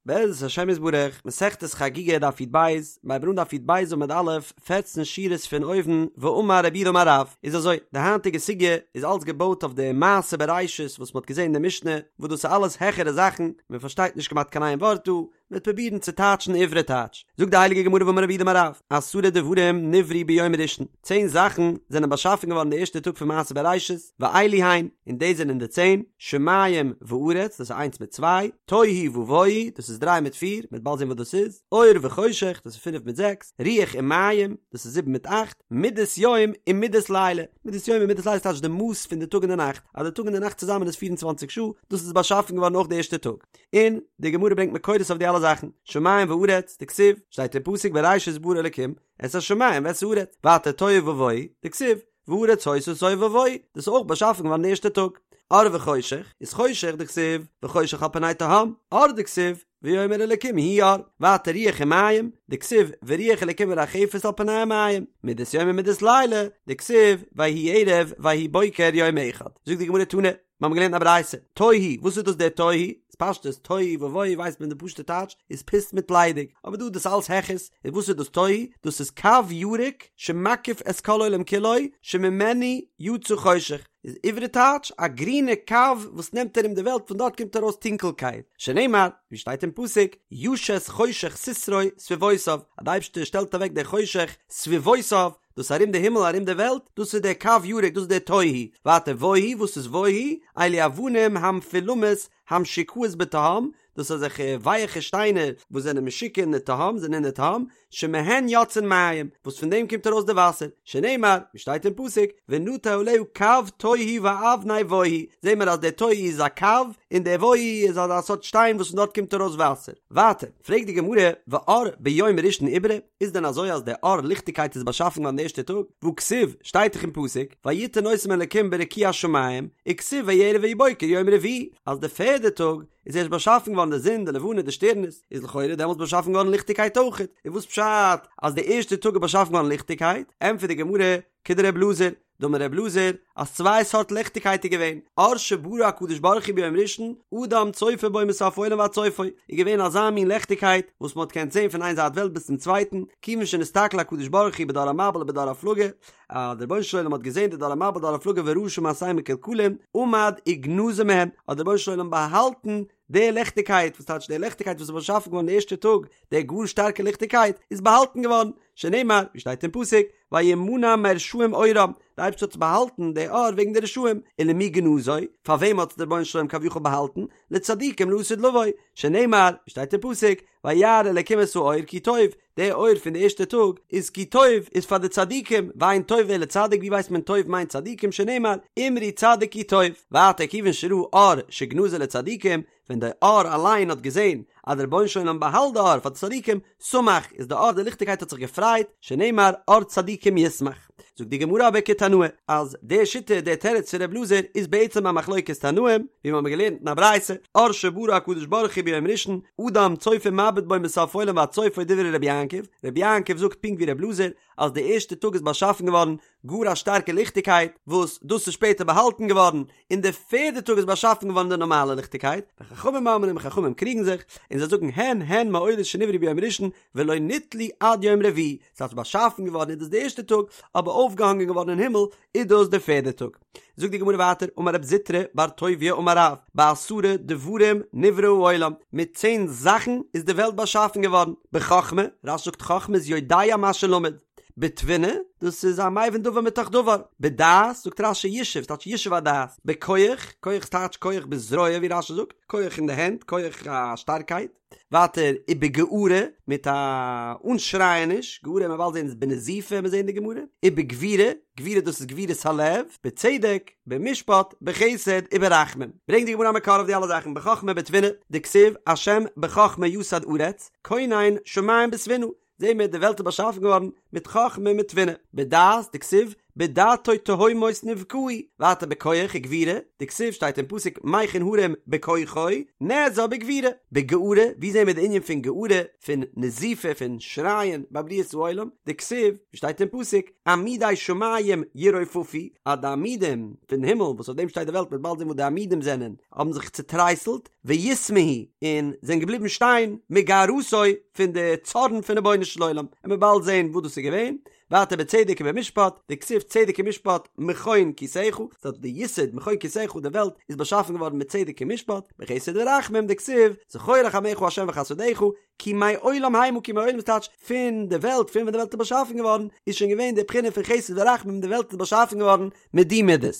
בעזרת השם יתברך, מסכת חגיגה דף י"ב, מיר הייבן אן דף י"ב עמוד א', פערצן שורות פון אויבן, ואמר רב יהודה אמר רב, איז אזוי, די היינטיגע סוגיא איז אלץ געבויט אויף די מעשה בראשית וואס מ'האט געזען אין די משנה, וואס דאס איז אלעס העכערע זאכן, מען פארשטייט נישט כמעט קיין איין ווארט דא, מ'וועט פרובירן צו טייטשן עברי טייטש. זאגט די הייליגע גמרא ואמר רב יהודה אמר רב, עשרה דברים נבראו ביום ראשון, צען זאכן זענען באשאפן געווארן די ערשטע טאג פון מעשה בראשית, ואלו הן, און דאס זענען די צען, שמים וארץ, דאס איז איינס מיט צוויי, תוהו ובוהו, דאס איז דריי מיט פיר, מ'וועט באלד זען וואס דאס איז, אור וחושך, דאס איז פינף מיט זעקס, רוח ומים, דאס איז זיבן מיט אכט, מדת יום און מדת לילה, מדת יום און מדת לילה טייטש די מאס פון די טאג און די נאכט, אז די טאג און די נאכט צוזאמען איז פיר און צוואנציג שעה, דאס איז באשאפן געווארן אויך די ערשטע טאג. און די גמרא ברענגט מקורות אויף די אלע זאכן, שמים וארץ, דכתיב, שטייט אין פסוק בראשית ברא אלקים את השמים ואת הארץ, ווייטער תוהו ובוהו, דכתיב, והארץ היתה תוהו ובוהו, דאס איז אויך באשאפן געווארן די ערשטע טאג. אור וחושך, איז חושך דכתיב, וחושך על פני תהום, אור דכתיב, ויאמר אלקים יהי אור, ווייטער רוח ומים, דכתיב, ורוח אלקים מרחפת על פני המים, מדת יום ומדת לילה, דכתיב, ויהי ערב ויהי בוקר יום אחד. זאגט די גמרא תנא, מיר האבן געלערנט א ברייתא, תוהו, וואס איז דאס דער תוהו? איז פשטות, תוהו ובוהו ווייסט מען די פשוטע טייטש איז פוסט מיט ליידיג, אבער דא איז דאס אלס העכערס, איז וואס איז דאס תוהו? דאס איז קו ירוק שמקיף את כל העולם כולו שממנו יצא חושך, איז עברי טייטש א גרינע קו וואס נעמט ארום די וועלט פון דארט קומט ארויס טונקלקייט, שנאמר ווי שטייט אין פסוק, ישת חושך סתרו סביבותיו, אז די אייבערשטער שטעלט אוועק די חושך סביבותיו, דאס ארום די הימל ארום די וועלט, דאס איז דער קו ירוק דאס איז דער תוהו, ווייטער בוהו, וואס איז בוהו? אלו אבנים המפולמות המשוקעות בתהום, דאס איז אזעלכע ווייעכע שטיינער וואס זענען משוקע אין די תהום, זענען אין די תהום, שמהן יוצאין מים, וואס פון דעם קומט ארויס די וואסער, שנאמר, ווי שטייט אין פסוק, ונטה עליה קו תוהו ואבני בוהו, זעהן מיר אז דער תוהו איז א קו, און דער בוהו איז אזא סארט שטיין וואס פון דארט קומט ארויס וואסער. ווייטער, פרעגט די גמרא, ואור ביום ראשון איברי? איז דען אזוי אז דער אור ליכטיגקייט איז באשאפן געווארן די ערשטע טאג? והכתיב, שטייט דאך אין פסוק, ויתן אותם אלקים ברקיע השמים, וכתיב ויהי ערב ויהי בוקר יום רביעי, אז די פערדע טאג איז ערשט באשאפן געווארן די זון, די לבנה, די שטערנעס, איז לכאורה דעמאלטס באשאפן געווארן ליכטיגקייט אויכעט, און וואס פשט אז די ערשטע טאג איז באשאפן געווארן ליכטיגקייט? ענטפערט די גמרא, כדר' אלעזר, דאמר ר' אלעזר, אז צוויי סארט ליכטיגקייט איז געווען, אור שברא הקדוש ברוך הוא ביום ראשון, אדם צופה בו מסוף העולם ועד סופו, איז געווען אזא מין ליכטיגקייט וואס מען האט געקענט זען פון איין זייט וועלט ביז צום צווייטן, כיוון שנסתכל הקדוש ברוך הוא בדור המבול ובדור הפלגה, אז דער רבונו של עולם האט געזען די דור המבול דור הפלגה וראה שמעשיהם מקולקלים, עמד וגנזו מהם, האט דער רבונו של עולם באהאלטן די ליכטיגקייט, וואס טייטש די ליכטיגקייט וואס איז באשאפן געווארן די ערשטע טאג, די גאר שטארקע ליכטיגקייט, איז באהאלטן געווארן, שנאמר, ווי שטייט אין פסוק, וימנע מרשעים אורם, די אייבערשטער האט באהאלטן די אור וועגן די רשעים, ולמי גנזו, פאר וועם האט דער רבונו של עולם כביכול באהאלטן, לצדיקים לעתיד לבוא, שנאמר, ווי שטייט אין פסוק, וירא אלקים את האור כי טוב, די אור פון די ערשטע טאג איז כי טוב איז פאר די צדיקים, ואין טוב אלא צדיק, ווי ווייסט מען טוב מיינט צדיקים שנאמר, אמרו צדיק כי טוב, ווייטער כיוון שראה אור שגנזו לצדיקים, ווען די אור אליין האט געזען אז דער רבונו של עולם באהאלט די אור פאר די צדיקים, שמח, איז די אור די ליכטיגקייט האט זיך געפרייט, שנאמר אור צדיקים ישמח. זאגט די גמרא אבער כתנאי, אז די שיטה די תירוץ פון ר' אלעזר איז בעצם א מחלוקת תנאים, ווי מיר האבן געלערנט אין א ברייתא, אור שברא הקדוש ברוך הוא ביום ראשון, אדם צופה ומביט בו מסוף עולם ועד סופו דברי רבי יעקב, רבי יעקב זאגט פונקט ווי ר' אלעזר, אז די ערשטע טאג איז באשאפן געווארן גאר א שטארקע ליכטיגקייט, וואס דאס איז שפעטער באהאלטן געווארן, און די פערדע טאג איז באשאפן געווארן די נארמאלע ליכטיגקייט, וחכמים אומרים חכמים קריגן זיך, און זיי זאגן הן הן מאורות שנבראו ביום ראשון ולא נתלו עד יום רביעי, ס'הייסט באשאפן געווארן איז דאס די ערשטע טאג, אבער אויפגעהאנגען געווארן אין הימל איז דאס די פערדע טאג. זאגט די גמרא ווייטער, אמר רב זוטרא בר טוביה אמר רב, בעשרה דברים נברא העולם, מיט צען זאכן איז די וועלט באשאפן געווארן, בחכמה, רש"י זאגט חכמה איז יודע מה שלמד, בתבונה, דאס איז א מבין דבר מתוך דבר, בדעת, זאגט רש"י ישוב, ס'טייטש ישוב הדעת, בכח, כח טייטש כח בזרוע ווי רש"י זאגט, כח אין די הענט, כח א שטארקייט, ווייטער ובגערה, מיט א אנשרייעניש, גערה מ'וועט באלד זען איז בנזיפה, מיר זעען די גמרא, ובגבורה, גבורה דאס איז גבורת הלב, בצדק, במשפט, בחסד, וברחמים. ברענגט די גמרא א מקור אויף די אלע זאכן, בחכמה בתבונה, דכתיב, השם בחכמה יסד ארץ, כונן שמים בתבונה, זעהן מיר די וועלט איז באשאפן געווארן מיט חכמה מיט תבונה, בדעת דכתיב בדעתו תהומות נבקעו, ווייטער בכח וגבורה, דכתיב שטייט אין פסוק מכין הרים בכוחו, נעזר בגבורה, בגערה, ווי זעהן מיר די ענין פון גערה, פון נזיפה, פון שרייען ביי בריאת העולם, דכתיב, ווי שטייט אין פסוק, עמודי שמים ירופפו, אז די עמודים פון הימל וואס אויף דעם שטייט די וועלט, מ'וועט באלד זעהן וואס די עמודים זענען, האבן זיך צוטרייסלט, ויתמהו, און זענען געבליבן שטיין, מגערתו, פון די צארן פון רבונו של עולם, און מ'וועט באלד זעהן וואס דאס איז געווען, ווייטער בצדק ובמשפט, דכתיב צדק ומשפט מכון כסאך, ס'הייסט די יסוד מכון כסאך די וועלט איז באשאפן געווארן מיט צדק און משפט, בחסד ורחמים דכתיב זכור רחמיך ה' וחסדיך, כי מעולם המה כי מעולם איז טייטש פון די וועלט פון ווען די וועלט איז באשאפן געווארן איז שוין געווען די בחינה פון חסד ורחמים די וועלט איז באשאפן געווארן מיט די מידות.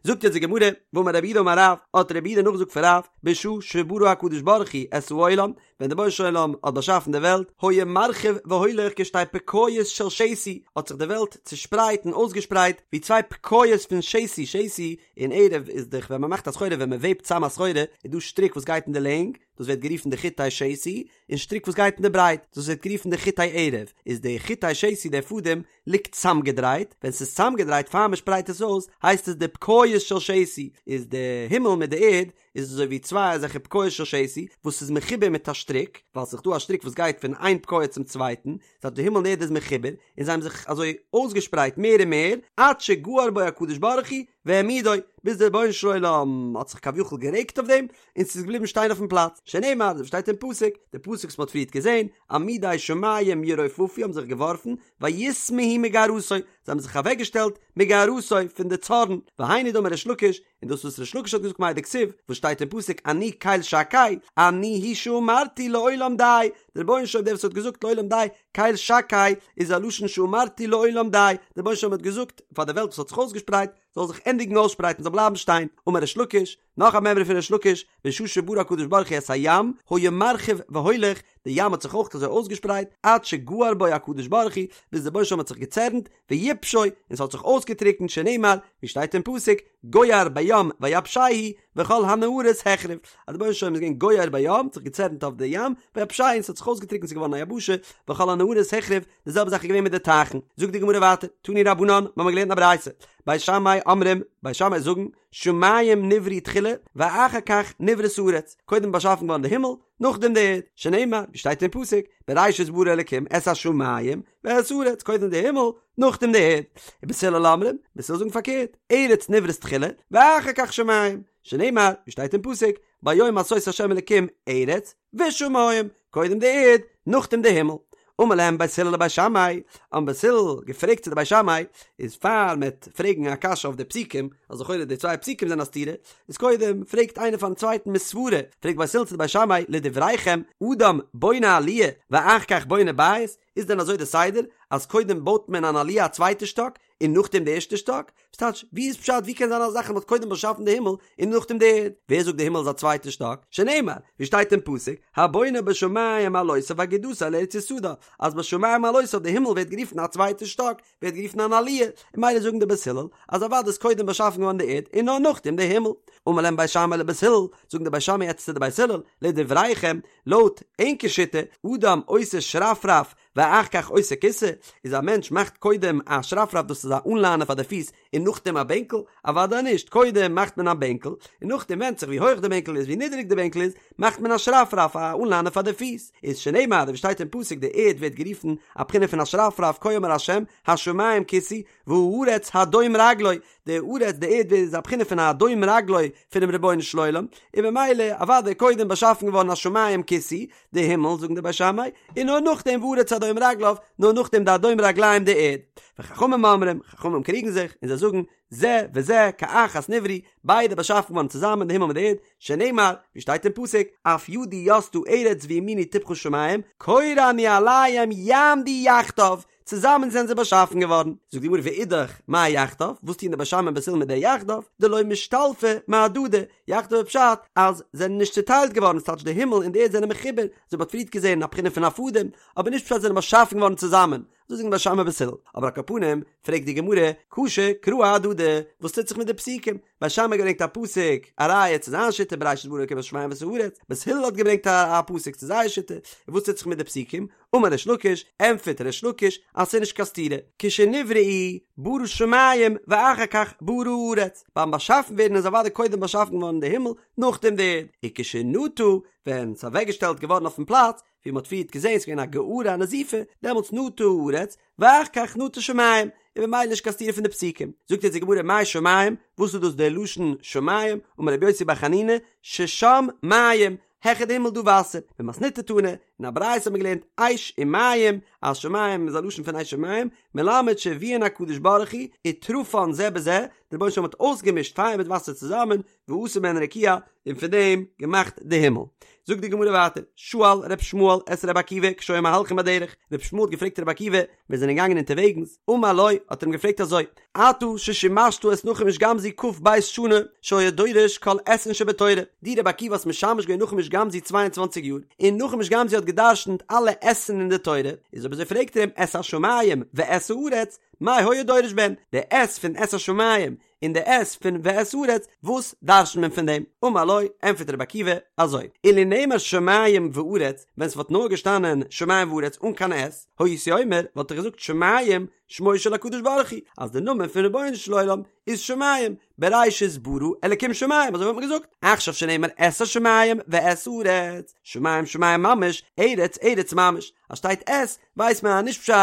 זאגט יעצט די גמרא, ואמר רב יהודה אמר רב, האט רב יהודה נאכגעזאגט פון רב, בשעה שברא הקדוש ברוך הוא את העולם, ווען דער רבונו של עולם האט באשאפן די וועלט, היה מרחיב והולך כשתי פקעיות של שתי, האט זיך די וועלט צושפרייט און אויסגעשפרייט ווי צוויי פקעיות פון שתי, שתי און ערב איז דאך ווען מען מאכט א סחורה ווען מען וועבט צאם א סחורה איז דא שטריק וואס גייט אין די לענג, דאס ווערט גערופן די חוטי שתי, און שטריק וואס גייט אין די ברייט, דאס ווערט גערופן די חוטי ערב, איז די חוטי שתי דער פאדעם ליגט צאמגעדרייט, ווען ס'איז צאמגעדרייט פאר מען שפרייט עס אויס הייסט עס די פקעיות של שתי, איז די הימל מיט די ערד איז אזוי ווי צוויי אזעלכע פקעיות של שתי וואס איז מחובר מיט א שטריק, ווייל ס'איז דא א שטריק וואס גייט פון איין פקעה צום צווייטן, ס'הייסט די הימל און ערד איז מחובר, און זיי האבן זיך אזוי אויסגעשפרייט מער און מער, עד שגער בו הקדוש ברוך הוא והעמידו, ביז דער רבונו של עולם האט זיך כביכול גערעגט אויף דעם, און ס'איז געבליבן שטיין אויפן פלאץ, שנאמר, אזוי ווי שטייט אין פסוק, די פסוק וואס מ'האט פריערט געזען, עמודי שמים ירופפו האבן זיך געווארפן, ויתמהו מגערתו, זיי האבן זיך אוועקגעשטעלט מגערתו פון די צארן, והיינו דאמר ריש לקיש, און דאס וואס ריש לקיש האט געזאגט מאי דכתיב, וואס שטייט אין פסוק אני קל שקי, אני הוא שאמרתי לעולם די, דער רבונו של עולם דער וואס האט געזאגט לעולם די, קל שקי איז א לשון שאמרתי לעולם די, דער רבונו של עולם האט געזאגט פאר די וועלט וואס האט זיך אויסגעשפרייט, זאל זיך ענדיגן אויסשפרייטן, זאל בלייבן שטיין, אמר ריש לקיש, נאך א מימרא פון ריש לקיש, בשעה שברא הקדוש ברוך הוא את הים, היה מרחיב והולך, די ים האט זיך אויך אזוי אויסגעשפרייט, עד שגער בו הקדוש ברוך הוא, ביז דער רבונו של עולם האט זיך געצערנט, ויבשו, און ס'האט זיך אויסגעטריקנט, שנאמר, ווי שטייט אין פסוק, גוער בים ויבשהו, וכל הנהרות החריב, אז דער רבונו של עולם איז געווען גוער בים, האט זיך געצערנט אויף די ים, ויבשהו, און ס'האט זיך אויסגעטריקנט, ס'איז געווארן א יבשה, וכל הנהרות החריב, די זעלבע זאך איז געווען מיט די טייכן. זאגט די גמרא ווייטער, תנו רבנן, מ'האמיר געלערנט א ברייתא, בית שמאי אומרים, בית שמאי זאגן, שמים נבראו תחילה, ואחר כך נבראת הארץ, קודם באשאפן געווארן די הימל, נאכדעם די ערד, שנאמר, ווי שטייט אין פסוק, בראשית ברא אלקים את השמים ואת הארץ, קודם די הימל, נאכדעם די ערד. ובית הלל אומרים, בית הלל זאגן פארקערט, ארץ נבראת תחילה, ואחר כך שמים, שנאמר, ווי שטייט אין פסוק, ביום עשות ה' אלקים ארץ ושמים, קודם די ערד, נאכדעם די הימל. אמר להם בית הלל לבית שמאי, האבן בית הלל געפרעגט צו די בית שמאי, איז פאר מ'עט פרעגן א קשיא אויף די פסוקים, אז לכאורה די צוויי פסוקים זענען א סתירה, איז קודם פרעגט איינער פארן צווייטן מסברא, פרעגט בית הלל צו די בית שמאי, לדבריכם, אדם בונה עליה ואחר כך בונה בית, איז דען אזוי די סדר, אז קודם בויט מען אן עליה א צווייטע שטאק, און נאכדעם די ערשטע שטאק? וואס טייטש, ווי איז פשט ווי קען זיין אזא זאך אז מ'האט קודם באשאפן די הימל און נאכדעם די ערד? ווער זאגט די הימל איז א צווייטע שטאק? שנאמר, ווי שטייט אין פסוק, הבונה בשמים מעלותיו אגודתו אל ארץ יסדה, אז בשמים מעלותיו די הימל ווערט גערופן א צווייטע שטאק, ווערט גערופן אן עליה, און ממילא זאגן די בית הלל אז אוודאי איז קודם באשאפן געווארן די ערד און נאר נאכדעם די הימל. אמר להם בית שמאי לבית הלל, זאגן די בית שמאי יעצט צו די בית הלל, לדבריכם, לויט ענקער שיטה, אדם עושה שרפרף ואחר כך עושה כסא, איז א מענטש מאכט קודם א שרפרף דאס איז א אנליינער פאר די פיס און נאכדעם א בענקל, אוודאי נישט, קודם מאכט מען א בענקל און נאכדעם ווענדט זיך ווי הויך די בענקל איז ווי נידעריג די בענקל איז מאכט מען א שרפרף א אנליינער פאר די פיס, איז שנאמר ווי שטייט אין פסוק די ערד ווערט גערופן א בחינה פון א שרפרף כה אמר ה' השמים כסאי והארץ הדום רגלי, די ארץ די ערד איז א בחינה פון א הדום רגלי פונעם רבונו של עולם, און ממילא אוודאי קודם באשאפן געווארן השמים כסאי, די הימל זאגן די בית שמאי, און נאר נאכדעם והארץ הדום רגליו, נאר נאכדעם די הדום רגליים די ערד. וחכמים אומרים, חכמים קריגן זיך, און זיי זאגן, זה וזה כאחת נבראו, ביידע באשאפן געווארן צוזאמען די הימל מיט די ערד, שנאמר, ווי שטייט אין פסוק, אף ידי יסדה ארץ וימיני טפחה שמים, קורא אני עליהם יעמדו יחדיו, צוזאמען זענען זיי באשאפן געווארן. זאגט די גמרא ואידך, מאי יחדיו, וואס טוען די בית שמאי און בית הלל מיט די יחדיו, דלא משתלפי מהדדי, יחדיו איז פשט אז זענען נישט צוטיילט געווארן, ס'טייטש די הימל און די ערד זענען מחובר, אזוי ווי מ'האט פריערט געזען א בחינה פון א פאדעם, אבער נישט פשט זענען באשאפן געווארן צוזאמען. אזוי זאגן בית שמאי בית הלל, אבער על כל פנים, פרעגט די גמרא, קשו קראי אהדדי, וואס טוט זיך מיט די פסוקים? בית שמאי האט געברענגט א פסוק, א ראיה צו זיין שיטה בראשית ברא אלקים את השמים ואת הארץ, בית הלל האט געברענגט א פסוק צו זייער שיטה, און וואס טוט זיך מיט די פסוקים? אמר ריש לקיש, ענטפערט ריש לקיש אז ס'איז נישט קיין סתירה, כשנבראו ברא שמים ואחר כך ברא הארץ, ביים באשאפן ווערן איז אוודאי קודם באשאפן געווארן די הימל, נאכדעם די ערד, וכשנטה, ווען ס'איז אוועקגעשטעלט געווארן אויפן פלאץ, ווי מ'האט פריערט געזען ס'איז געווען א גערה א נזיפה, דעמאלטס נטה הארץ, ואחר כך נטה שמים, און ממילא נישט קיין סתירה פון די פסוקים. זאגט יעצט די גמרא מאי שמים, וואס איז דאס דער לשון שמים, אמר רבי יוסי בר חנינא, ששם מים, העכער די הימל דא וואסער, במתניתא תנא, אין א ברייתא האט מען געלערנט אש ומים, אז שמים איז א לשון פון אש ומים, מלמד שהביאן הקדוש ברוך הוא, וטרפן זה בזה, דער רבונו של עולם האט אויסגעמישט פייער מיט וואסער צוזאמען, ועשה מהן רקיע, און פון דעם געמאכט די הימל. זאגט די גמרא ווייטער, שאל ר' ישמעאל את ר' עקיבא כשהיו מהלכים בדרך, ר' ישמעאל האט געפרעגט ר' עקיבא, ווען זיי זענען געגאנגען אונטערוועגנס, אמר לו, האט ער אים געפרעגט אזוי, אתה ששימשת את נחום איש גם זו כ"ב שנה, שהיה דורש כל אתין שבתורה, דו ר' עקיבא האסט משמש געווען נחום איש גם זו צוויי און צוואנציג יאר, און נחום איש גם זו האט גע'דרש'נט אלע אתין אין די תורה, איז אויב אזוי פרעגט ער אים את השמים ואת הארץ, מאי היה דורש בהן, די את פון את השמים און די את פון ואת הארץ, וואס דרש'נט מען פון דעם? אמר לו, ענטפערט רבי עקיבא, אזוי, אילו נאמר שמים וארץ, ווען ס'וואלט נאר געשטאנען שמים וארץ אן קיין את, הייתי אומר, וואלט איך געזאגט שמים שמו של הקדוש ברוך הוא, אז די נאמען פון רבונו של עולם איז שמים, בראשית ברא אלקים שמים, אזוי וואלט מען געזאגט, עכשיו שנאמר את השמים ואת הארץ, שמים שמים ממש, ארץ ארץ ממש, אז שטייט את, ווייסט מען אז נישט פשט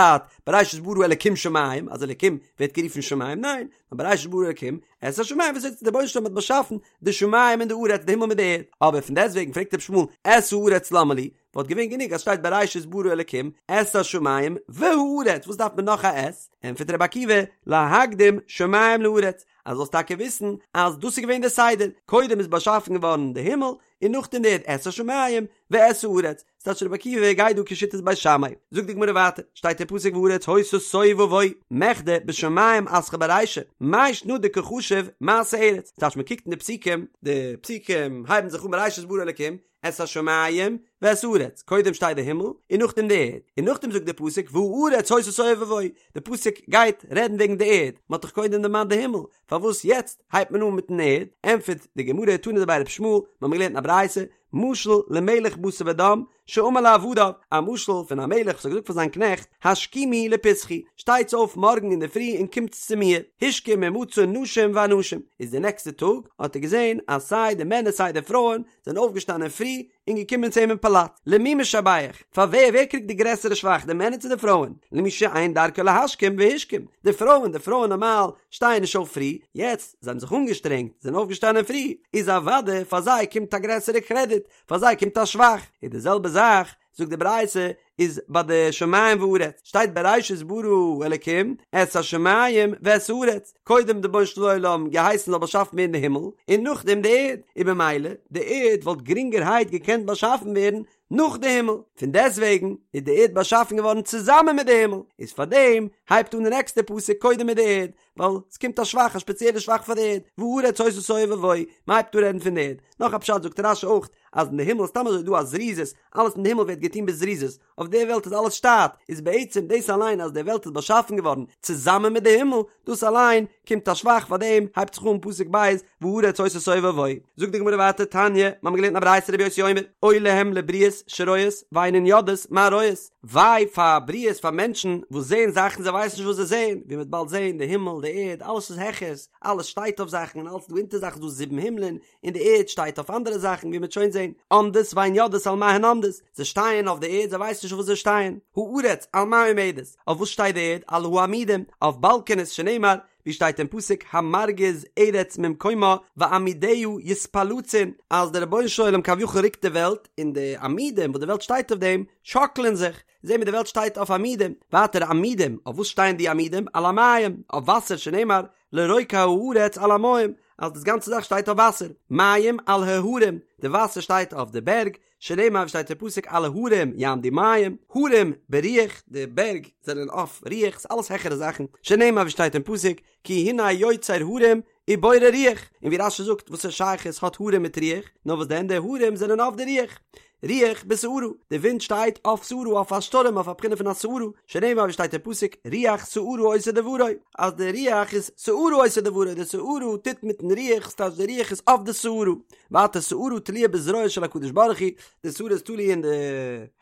בראשית ברא אלקים שמים, אז אלקים ווערט גערופן שמים, ניין, נאר בראשית ברא אלקים את השמים ואת הארץ דער רבונו של עולם האט באשאפן די שמים און די ארץ די הימל מיט די ערד, אבער פון דעסטוועגן פרעגט רבי ישמעאל את הארץ למה לי, וואלט געווען גענוג אז שטייט בראשית ברא אלקים את השמים והארץ וואס דארף מען נאך א את, ענטפערט רבי עקיבא להקדים שמים לארץ, אז זאלסט טאקע וויסן אז דאס איז געווען דער סדר, קודם איז באשאפן געווארן די הימל און נאכדעם די ערד את השמים ואת הארץ, ס'טייטש רבי עקיבא גייט דא כשיטת בית שמאי. זאגט די גמרא ווייטער, שטייט אין פסוק והארץ היתה תוהו ובוהו, מכדי בשמים אתחיל ברישא, מאי שנא דקא חשיב מעשה ארץ, ס'טייטש מ'קוקט אין די פסוקים, די פסוקים הייבן זיך אן בראשית ברא אלקים את השמים ואת הארץ, קודם שטייט די הימל און נאכדעם די ערד, און נאכדעם זאגט די פסוק והארץ היתה תוהו ובוהו, די פסוק גייט רעדן וועגן די ערד, מ'האט דאך קודם דערמאנט די הימל, פארוואס יעצט הייבט מען אן מיטן ערד? ענטפערט די גמרא, תנא דבי רבי ישמעאל, מיר האבן געלערנט אין א ברייתא, משל למלך בשר ודם שאמר לעבדיו, א משל פון א מלך וואס האט געזאגט פאר זיין קנעכט, השכימו לפתחי, שטייטס אויף מארגן אינדערפרי און קומטס צו מיר, השכים ומצא נשים ואנשים, איז די נעקסטע טאג האט ער געזען אז סיי די מענער סיי די פרויען זענען אויפגעשטאנען פרי און געקומען צו אים אין פאלאץ, למי משבח, פאר ווער, ווער קריגט די גרעסערע שבח, די מענער צו די פרויען, למי שאין דרכו להשכים והשכים, די פרויען, די פרויען נארמאל שטייען נישט אויף פרי, יעצט, זיי האבן זיך אנגעשטרענגט, זענען אויפגעשטאנען פרי, איז אוודאי פאר זיי קומט א גרעסערע קרעדיט, פאר זיי קומט א שבח, איז די זעלבע זאך, זאגט די ברייתא, איז ביי די שמים וארץ, שטייט בראשית ברא אלקים את השמים ואת הארץ, קודם די רבונו של עולם געהייסן זאל באשאפן ווערן די הימל, און נאכדעם די ערד, און במילא די ערד וואלט גרינגערהייט געקענט באשאפן ווערן נאך די הימל, פון דעסטוועגן איז די ערד באשאפן געווארן צוזאמען מיט די הימל, איז פארדעם הייבט אן די נעקסטע פסוק קודם מיט די ערד, ווייל עס קומט א שבח, א שפעציעלע שבח פאר די ערד, והארץ היתה תוהו ובוהו, מען הייבט אן רעדן פון די ערד. נאך א פשט זאגט רש"י אויך, אז אין די הימל איז סתם אזוי דא א זריזות, אלעס אין די הימל ווערט געטון בזריזות, אויף די וועלט איז אלעס שטאט, איז בעצם דאס אליין אז די וועלט איז באשאפן געווארן צוזאמען מיט די הימל, דאס אליין קומט א שבח פאר דעם הייבט זיך אן פסוק ב' והארץ היתה תוהו ובוהו. זאגט די גמרא ווייטער תניא, מיר האבן געלערנט אין א ברייתא רבי יוסי אומר, אוי להם לבריות שרואות ואינן יודעות מה רואות, וויי פאר בריות פאר מענטשן וואס זעען זאכן זיי ווייסן נישט וואס זיי זעען, ווי מ'וועט באלד זען די הימל די ערד אלעס איז העכערס, אלעס שטייט אויף זאכן און אלעס איז דא אונטער זאכן ס'איז דא זיבן הימלען, און די ערד שטייט אויף אנדערע זאכן ווי מ'וועט שוין זען, עומדות ואין יודעות על מה הן עומדות, זיי שטייען אויף די ערד זיי ווייסן נישט אויף וואס זיי שטייען, הארץ על מה עומדת, אויף וואס שטייט די ערד, על העמודים, אויף באלקענעס שנאמר, ווי שטייט אין פסוק המרגיז ארץ ממקומה ועמודיה יתפלצון, אז דער רבונו של עולם כביכול רוקט די וועלט, און די עמודים וואס די וועלט שטייט אויף דעם, שאקלען זיך, זעהן מיר די וועלט שטייט אויף עמודים, ווייטער עמודים, אויף וואס שטייען די עמודים, על המים, אויף וואסער שנאמר, לרוקע הארץ על המים, אז דאס גאנצע זאך שטייט אויף וואסער, מים על ההרים, די וואסער שטייט אויף די בערג, שנאמר ווי שטייט אין פסוק על ההרים יעמדו מים, הרים ברוח, די בערג זענען אויף רוח, ס'איז אלעס העכערע זאכן, שנאמר ווי שטייט אין פסוק כי הנה יוצר הרים ובורא רוח, און ווי רש"י זאגט וואסערע שייכות האט הרים מיט רוח, נאר וואס דען די הרים זענען אויף די רוח. רוח בסערה, די ווינט שטייט אויף סערה, אויף א שטורעם, אויף א בחינה פון א סערה, שנאמר ווי שטייט אין פסוק, רוח סערה עושה דברו, אז די רוח איז סערה עושה דברו, די סערה טוט מיטן רוח, ס'טייטש די רוח איז אויף די סערה. ווייטער סערה תלויה בזרועו של הקדוש ברוך הוא, די סערה איז תלוי אין די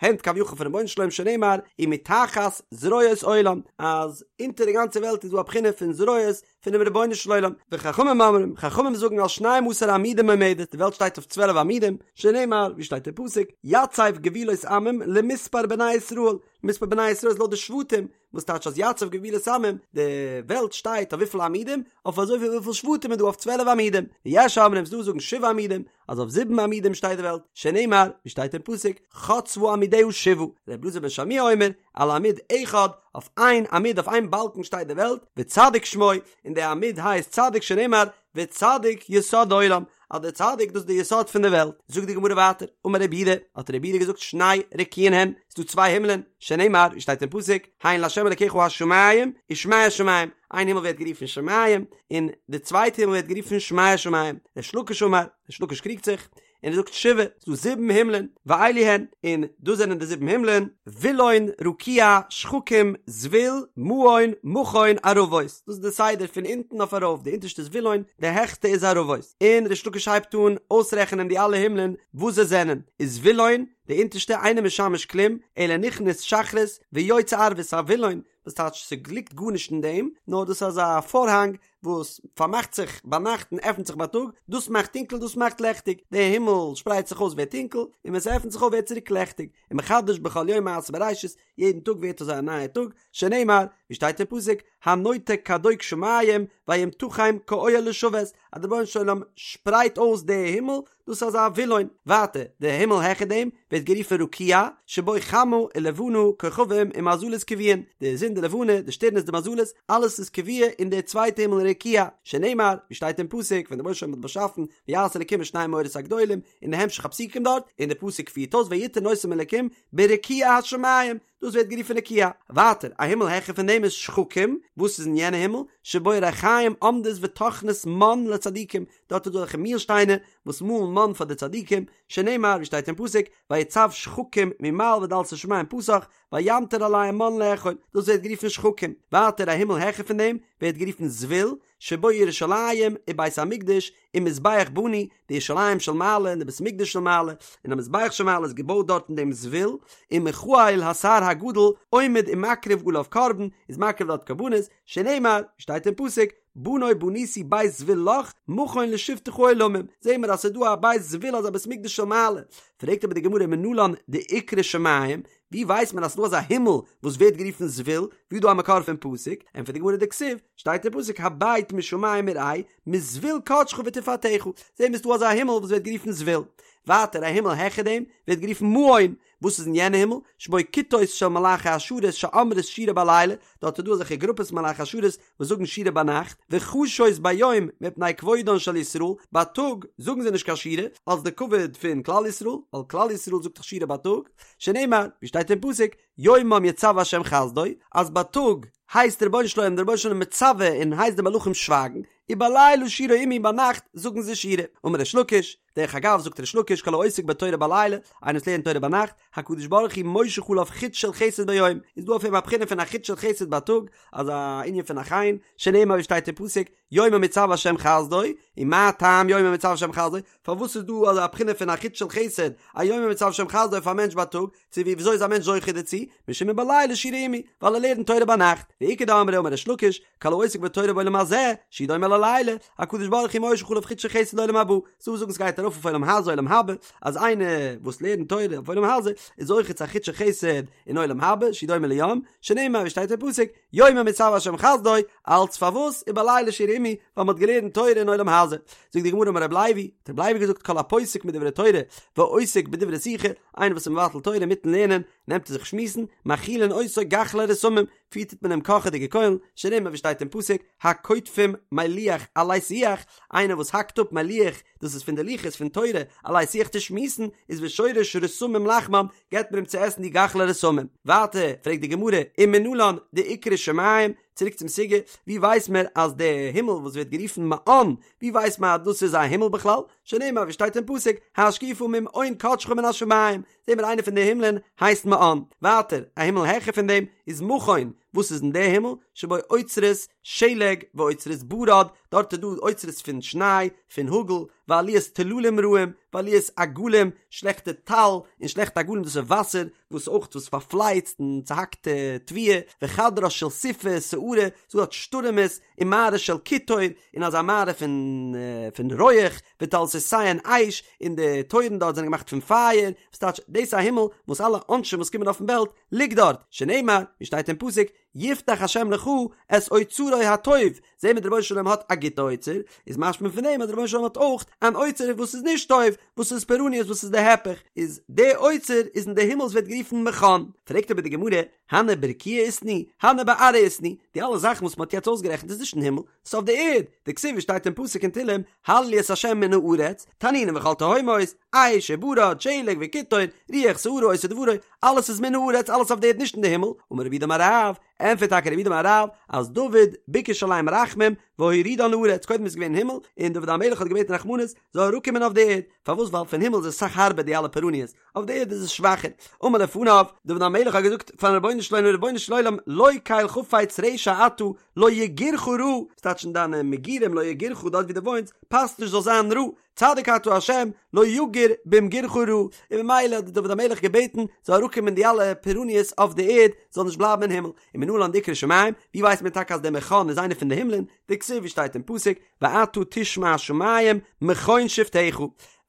הענט כביכול פונעם רבונו של עולם שנאמר, ומתחת זרועות עולם, אז אונטער די גאנצע וועלט איז דא א בחינה פון זרועות פונעם רבונו של עולם, וחכמים אומרים, חכמים זאגן על שנים עשר עמודים עומדת, די וועלט שטייט אויף צוועלף עמודים, שנאמר, ווי שטייט אין פסוק, יצב גבולות עמים למספר בני ישראל, מספר בני ישראל איז לויט די שבטים, וואס טייטש אז יצב גבולות עמים, די וועלט שטייט אויף וויפיל עמודים? אויף אזויפיל וויפיל שבטים איז דא אויף צוועלף עמודים, ויש אומרים ס'דא וואס זאגן שבעה עמודים, אז אויף זיבן עמודים שטייט די וועלט, שנאמר, ווי שטייט אין פסוק, חצבה עמודיה שבעה, ר' אלעזר בן שמוע אומר, על עמוד אחד, אויף איין עמוד אויף איין באלקן שטייט די וועלט, וצדיק שמו, און די עמוד הייסט צדיק שנאמר, וצדיק יסוד עולם, אז דער צדיק דאס איז די יסוד פון די וועלט, זאגט די גמרא ווייטער, אמר רב יהודה, האט רב יהודה געזאגט שני רקיעין הן, ס'איז דא צוויי הימלען, שנאמר, ווי שטייט אין פסוק, הן לה' אלקיך השמים ושמי השמים, איין הימל ווערט גערופן שמים, און די צווייטע הימל ווערט גערופן שמי השמים, ריש לקיש אמר, ריש לקיש קריגט זיך, און ער זאגט שבעה, ס'איז דא זיבן הימלען, ואלו הן, און דאס זענען די זיבן הימלען, וילון, רקיע, שחקים, זבול, מעון, מכון, ערבות, דאס איז די סדר פון אונטן אויף ארויף, די אונטערשטע איז וילון, די העכסטע איז ערבות, און ריש לקיש הייבט אן אויסרעכענען די אלע הימלען וואס זיי זענען, איז וילון, די אונטערשטע אינו משמש כלום, אלא נכנס שחרית ויוצא ערבית, א וילון, וואס טייטש ס'ליגט גארנישט אין דעם, נאר דאס איז אזא פארהאנג וואס פארמאכט זיך ביינאכט און עפנט זיך בייטאג, דאס מאכט טונקל דאס מאכט לעכטיג, די הימל שפרייט זיך אויס ווערט טונקל, און ווען ס'עפנט זיך אויף ווערט צוריק לעכטיג, ומחדש בכל יום מעשה בראשית, יעדן טאג ווערט אזוי א נייע טאג, שנאמר, ווי שטייט אין פסוק, הנוטה כדוק שמים וימתחם כאוהל לשבת, אז דער רבונו של עולם שפרייט אויס די הימל, דאס איז אזא וילון. ווייטער, די הימל העכער דעם ווערט גערופן רקיע, שבו חמה ולבנה כוכבים ומזלות קבועין, די זון די לבנה, די שטערנעס די מזלות, אלעס איז קבוע אין די צווייטע הימל רקיע, שנאמר, ווי שטייט אין פסוק, ווען דער רבונו של עולם האט באשאפן, ויעש אלקים את שני המאורות הגדולים, און די המשך הפסוקים דארט, און די פסוק פירט אויס ויתן אותם אלקים ברקיע השמים, דאס ווערט גערופן רקיע. ווייטער, א הימל העכער פון דעם איז שחקים, וואס איז אין יענע הימל? שבו רחיים עומדות וטוחנות מן לצדיקים, דארט איז דא אזעלכע מיל שטיינער וואס מאלן מן פאר די צדיקים, שנאמר ווי שטייט אין פסוק, ויצו שחקים ממעל ודלתי שמים פתח, וימטר עליהם מן לאכול, דאס ווערט גערופן שחקים. ווייטער, א הימל העכער פון דעם ווערט גערופן זבול, שבו ירושלים ובית המקדש ומזבח בנוי, די ירושלים של מעלה און די בית המקדש של מעלה, און א מזבח של מעלה איז געבויט דארט אין דעם זבול, ומיכאל השר הגדול עומד ומקריב עליו קרבן, איז מקריב דארט קרבנות, שנאמר, ווי שטייט אין פסוק, בנה בניתי בית זבול לך, מכון לשבתך עולמים, זעהן מיר אז ס'איז דא א בית זבול אזא בית מקדש של מעלה, פרעגט אבער די גמרא מנלן דאיקרי שמים, ווי ווייסט מען אז ס'דא אזא הימל וואס ווערט גערופן זבול, ווי איז דא א מקור פון פסוק? ענטפערט די גמרא דכתיב, שטייט אין פסוק הבט משמים וראה, מזבול קדשך ותפארתך, זעהן מיר ס'דא אזא הימל וואס ווערט גערופן זבול. ווייטער א הימל העכער דעם ווערט גערופן מעון, וואס איז אין יענע הימל? שבו כיתות של מלאכי השרת שאומרות שירה בלילה, דארט איז דא אזעלכע גרופעס מלאכי השרת וואס זאגן שירה ביינאכט, וחשות ביום מפני כבודן של ישראל, בייטאג זאגן זיי נישט קיין שירה, אלס די כבוד פון כלל ישראל, ווייל כלל ישראל זאגט דאך שירה בייטאג, שנאמר, ווי שטייט אין פסוק, יומם יצוה ה' חסדו, אז בייטאג הייסט דער רבונו של עולם, דער רבונו של עולם מצווה און הייסט די מלאכים שווייגן, ובלילה שירה עמי ביינאכט זאגן זיי שירה. אמר ריש לקיש, דרך אגב זאגט ריש לקיש כל העוסק בתורה בלילה, איינער וואס לערנט תורה ביינאכט, הקדוש ברוך הוא מושך עליו חוט של חסד ביום, איז דא אויף אים א בחינה פון א חוט של חסד בייטאג, אזא ענין פון א חן, שנאמר ווי שטייט אין פסוק, יומם יצוה ה' חסדו, ומה טעם יומם יצוה ה' חסדו, פארוואס איז דא אזא בחינה פון א חוט של חסד, א יומם יצוה ה' חסדו אויף א מענטש בייטאג, צו ווי וויאזוי איז א מענטש זוכה דערצו, משום ובלילה שירה עמי, ווייל ער לערנט תורה ביינאכט, ואיכא דאמרי אמר ריש לקיש, כל העוסק בתורה בעולם הזה, שהוא דומה ללילה, הקדוש ברוך הוא מושך עליו חוט של חסד לעולם הבא, ס'דא וואס זאגן ס'גייט ארויף אויף עולם הזה עולם הבא, אז איינער וואס לערנט תורה אויף עולם הזה, איז זוכה צו א חוט של חסד אין עולם הבא, שהוא דומה ליום, שנאמר ווי שטייט אין פסוק, יומם יצוה השם חסדו, אלץ פארוואס ובלילה שירה עמי, ווייל מ'האט געלערנט תורה אין עולם הזה. זאגט די גמרא אמר רב לוי, האט רב לוי געזאגט כל הפוסק מדברי תורה ועוסק בדברי שיחה, איינער וואס איז מבטל תורה אינמיטן לערנען, נעמט ער זיך שמועסן, מאכילין אותו גחלי רתמים, פיטערט מען אים קאכעדיגע קוילן, שנאמר ווי שטייט אין פסוק, הקוטפים מלוח עלי שיח, איינער וואס האקט אפ מלוח, דאס איז פון די לוחות פון תורה, עלי שיח צו שמועסן, איז ושורש רתמים לחמם, געבט מען אים צו עסן די גחלי רתמים. ווייטער פרעגט די גמרא, ומנלן דאיקרי שמים, צוריק צום סוגיא, ווי ווייסט מען אז די הימל וואס ווערט גערופן מעון, ווי ווייסט מען אז דאס איז א הימל בכלל? שנאמר ווי שטייט אין פסוק, השקיפה ממעון קדשך מן השמים, זעהן מיר איינע פון די הימלען הייסט מעון. ווייטער, א הימל העכער פון דעם איז מכון, וואס איז אין די הימל? שבו אוצרות שלג ואוצרות ברד, דארט איז דא אוצרות פון שניי, פון האגל, ועליית טללים רעים, ועליית אגלים, שלעכטע טל, און שלעכטע אגלים דאס איז וואסער, וואס אויך וואס פארפלייצט און צוהאקט תבואה, וחדרה של סופה סערה, ס'דא דארט שטורעמעס, ומערה של קיטור, און אזא מערה פון פון רויעך, ודלתותיהן אש, און די טויערן דארט זענען געמאכט פון פייער, וואס טייטש, דאס איז א הימל וואס אלע עונשים וואס קומען אויפן וועלט ליגט דארט, שנאמר, ווי שטייט אין פסוק, יפתח השם לך את אוצרו הטוב, זעהן מיר דער רבונו של עולם האט א גוטע אוצר, איז משמע פון דעם אז דער רבונו של עולם האט אויך אן אוצר וואס איז נישט טוב, וואס איז פורעניות וואס איז די היפך, איז די אוצר איז אין די הימל וואס ווערט גערופן מכון, פרעגט אבער די גמרא, הני ברקיעא איתנהו, הני בארעא איתנהו, די אלע זאכן וואס מען האט יעצט אויסגערעכנט איז נישט אין הימל, ס'איז אויף די ערד, דכתיב ווי שטייט אין פסוק אין תהלים, הללו את ה' מן הארץ, תנינים וכל תהומות, אש וברד, שלג וקיטור, רוח סערה עושה דברו, אלעס איז מן הארץ, אלעס אויף די ערד נישט אין די הימל, אמר רב יהודה אמר רב, ענטפערט טאקע רב יהודה אמר רב, אז דוד ביקש עליהם רחמים והורידן לארץ, קודם איז געווען אין הימל, און דוד המלך האט געבעטן רחמנות, זאל אראפקומען אויף די ערד, פארוואס ווייל פון הימל איז עס אסאך הארבער די אלע פורעניות, אויף די ערד איז עס שוואכער. אמר לפניו, דוד המלך האט געזאגט פארן רבונו של עולם, רבונו של עולם, לא קל חפץ רשע אתה, לא יגורך רע, ס'טייטש אין דיינע מגורים לא יגורך דארט ווי דו וואוינסט, פאסט נישט זאל זיין רע, צדיק אתה השם, לא יגור במגורך רע, און ממילא האט דוד המלך געבעטן זאל אראפקומען די אלע פורעניות אויף די ערד, זאל נישט בלייבן אין הימל. ומנלן דאיקרי שמים, ווי ווייסט מען טאקע אז דער מכון איז איינער פון די הימלען, דכתיב ווי שטייט אין פסוק, ואתה תשמע שמים מכון שבתך.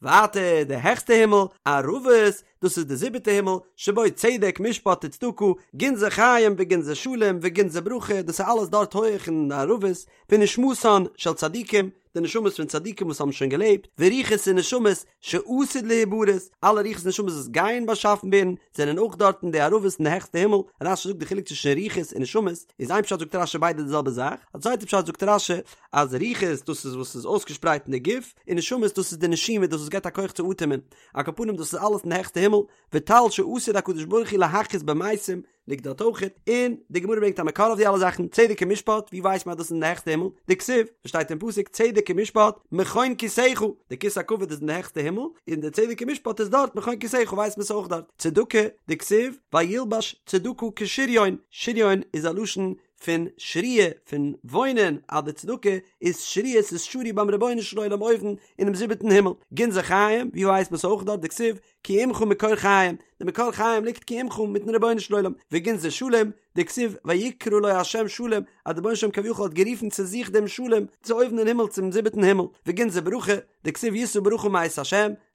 ווייטער די העכסטע הימל, ערבות, דאס איז די זיבעטע הימל, שבו צדק משפט וצדקה, גנזי חיים וגנזי שלום וגנזי ברכה, דאס איז אלעס דארט הויעך אין די ערבות, ונשמתן של צדיקים, די נשמות פון צדיקים וואס האבן שוין געלעבט, ורוחות ונשמות שעתיד להיבראות, אלע רוחות און נשמות וואס גייען באשאפן ווערן, זענען אויך דארט אין די ערבות אין די העכסטע הימל, רש"י זאגט די חילוק צווישן רוחות און נשמות, איז איין פשט זאגט רש"י ביידע די זעלבע זאך, א צווייטע פשט זאגט רש"י אז רוחות דאס איז וואס איז אויסגעשפרייט אין די גוף, און נשמות דאס איז די נשימה דאס וואס געבט א כח צו אטעמען, על כל פנים דאס איז אלעס אין די העכסטע הימל, וטל שעתיד הקדוש ברוך הוא להחיות במתים, ליגט דארט אויכעט, און די גמרא ברענגט א מקור אויף די אלע זאכן, צדק און משפט, ווי ווייסט מען אז דאס איז אין די העכסטע הימל? דכתיב, וואס שטייט אין פסוק, צדק ומשפט, מכון כסאך, די כסא הכבוד איז אין די העכסטע הימל, און די צדק און משפט איז דארט, מכון כסאך ווייסט מען ס'איז אויך דארט, צדקה, דכתיב, וילבש צדקה כשריון, שריון איז א לשון פון שריה, פון וואוינען, אז די צדקה איז שריה, ס'איז שרוי ביים רבונו של עולם אויבן אינעם זיבעטן הימל, גנזי חיים, ווי ווייסט מען ס'איז אויך דארט, דכתיב, כי עמך מקור חיים, די מקור חיים ליגט כי עמך מיטן רבונו של עולם, וגנזי שלום, דכתיב ויקרא לו ה' שלום, אז דער רבונו של עולם כביכול האט גערופן צו זיך דעם שלום, צו אויבן אין הימל צום זיבעטן הימל, וגנזי ברכה, דכתיב ישא ברכה מאת ה',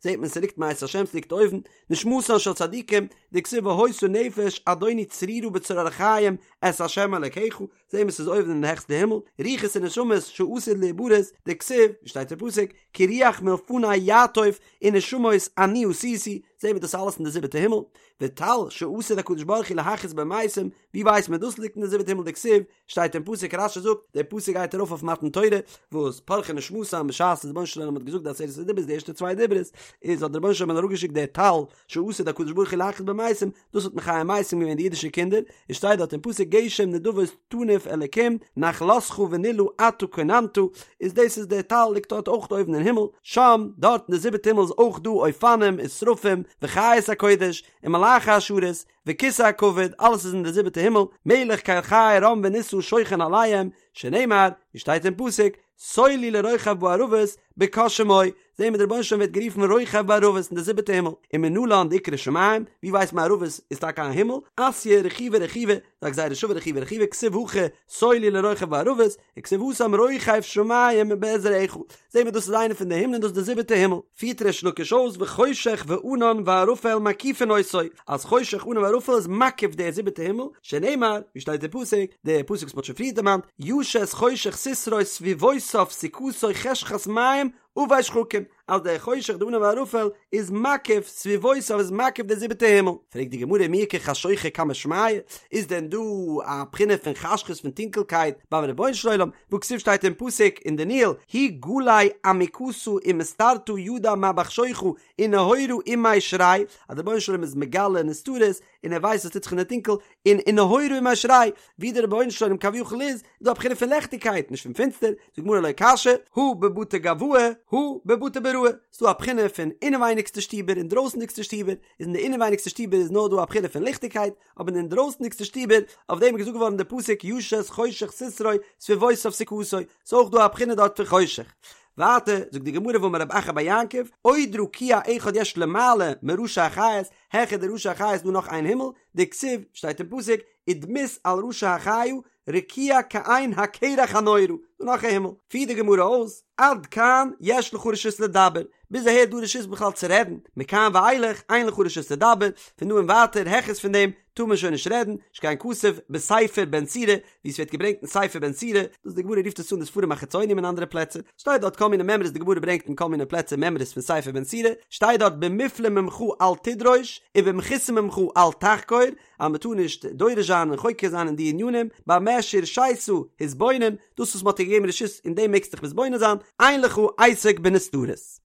זעט מען ס'ליגט מאת ה' ס'ליגט אויבן, נשמתן של צדיקים, דכתיב והיתה נפש אדוני צרורה בצרור החיים את ה' אלקיך, זעהן מיר ס'איז אויבן אין די העכסטע הימל, רוחות ונשמות שעתיד להיבראות, דכתיב, ווי שטייט אין פסוק, כי רוח מלפני יעטוף ונשמות אני עשיתי, זעהן מיר דאס אלעס אין די זיבעטע הימל, וטל שעתיד הקדוש ברוך הוא להחיות במתים, ווי ווייסט מען דאס ליגט אין די זיבעטע הימל דכתיב, שטייט אין פסוק רש"י זאגט, דער פסוק גייט ארויף אויף מתן תורה, וואס פרחה נשמתם בשעת דער רבונו של עולם האט געזאגט די עשרת הדיברות די ערשטע צוויי דיברות, איז האט דער רבונו של עולם אראפגעשיקט דער טל שעתיד הקדוש ברוך הוא להחיות במתים, דאס האט מחיה מתים געווען די אידישע קינדער, עס שטייט דארט אין פסוק גשם נדבות תנוף אלקים נחלתך ונלאה אתה כוננת, איז דאס איז דער טל ליגט דארט אויך אויבן אין הימל, שם, דארט אין די זיבעטע הימל איז אויך דא אופנים ושרפים וחיות הקודש ומלאכי השרת וכסא הכבוד, אלעס איז אין די זיבעטע הימל, מלך קל חי רם ונשא שוכן עליהם, שנאמר, ווי שטייט אין פסוק, סולו לרוכב בערבות בקה שמו, זעהן מיר דער רבונו של עולם ווערט גערופן רוכב בערבות אין די זיבעטע הימל, ומנלן דאיקרי שמים, ווי ווייסט מען ערבות איז טאקע א הימל, אתיא רכיבא רכיבא, א גזירה שווה רכיבא רכיבא, כתיב הכא סולו לרוכב בערבות, וכתיב התם רוכב שמים בעזרך, זעהן מיר דאס איז איינע פון די הימלען דאס איז די זיבעטע הימל, פירט ריש לקיש אויס וחושך וענן וערפל מקיפין אותו, אז חושך ענן וערפל איז מקיף די זיבעטע הימל, שנאמר, ווי שטייט אין פסוק, די פסוק וואס מ'האט שוין פריער דערמאנט, ישת חושך סתרו סביבותיו סוכתו חשכת מים. עבי שחקים, אז דער חושך די ענן וערפל איז מקיף סביבותיו איז מקיף די זיבעטע הימל. פרעגט די גמרא מי איכא חשוכא קמי שמיא, איז דען דא א בחינה פון חשכות פון טונקלקייט ביים רבונו של עולם, והכתיב שטייט אין פסוק אין דניאל, הוא גלי עמיקתא ומסתרתא ידע מה בחשוכא ונהורא עמיה שרי, אז דער רבונו של עולם איז מגלה נסתרות און ער ווייסט וואס טוט זיך אין די טונקל, און ונהורא עמיה שרי, ווי דער רבונו של עולם כביכול איז, איז דא א בחינה פון לעכטיגקייט, נישט פון פינסטער, זאגט די גמרא לא קשיא, הא בבתי גואי, הא בבתי בראי, ס'איז דא א בחינה פון אינעווייניגסטע שטיבער און דרויסנדיגסטע שטיבער, איז אין די אינעווייניגסטע שטיבער איז נאר דא א בחינה פון ליכטיגקייט, אבער אין די אינדרויסנדיגסטע שטיבער, אויף דעם איז געזאגט געווארן די פסוק ישת חושך סתרו סביבותיו סוכתו, ס'איז אויך דא א בחינה דארט פון חושך. ווייטער זאגט די גמרא ואמר רב אחא בר יעקב, עוד רקיע אחד יש למעלה מראשי החיות, העכער די ראשי החיה איז דא נאך איין הימל, דכתיב, שטייט אין פסוק, ודמות על ראשי החיה, רקיע כעין הקרח הנורא, דא נאך א הימל, פירט די גמרא אויס, עד כאן יש לך רשות לדבר, ביז אהער איז דא רשות בכלל צו רעדן, מכאן ואילך אין לך רשות לדבר, פון דא און ווייטער העכערס פון דעם טאר מען שוין נישט רעדן, שכן כתוב בספר בן סירא, ווי עס ווערט געברענגט אין ספר בן סירא, דאס די גמרא רופט עס אן די ספרים החיצונים אין אנדערע פלעצער, שטייט דארט כל מיני מימרות די גמרא ברענגט אין כל מיני פלעצער מימרות פון ספר בן סירא, שטייט דארט במופלא ממך אל תדרוש, ובמכוסה ממך אל תחקור, אז מען טאר נישט דורש זיין און חוקר זיין אין די ענינים, במה שהורשית התבונן, דאס וואס מען האט דיר געגעבן רשות אין דעם מעגסטו דיך מתבונן זיין, אין לך עסק בנסתרות.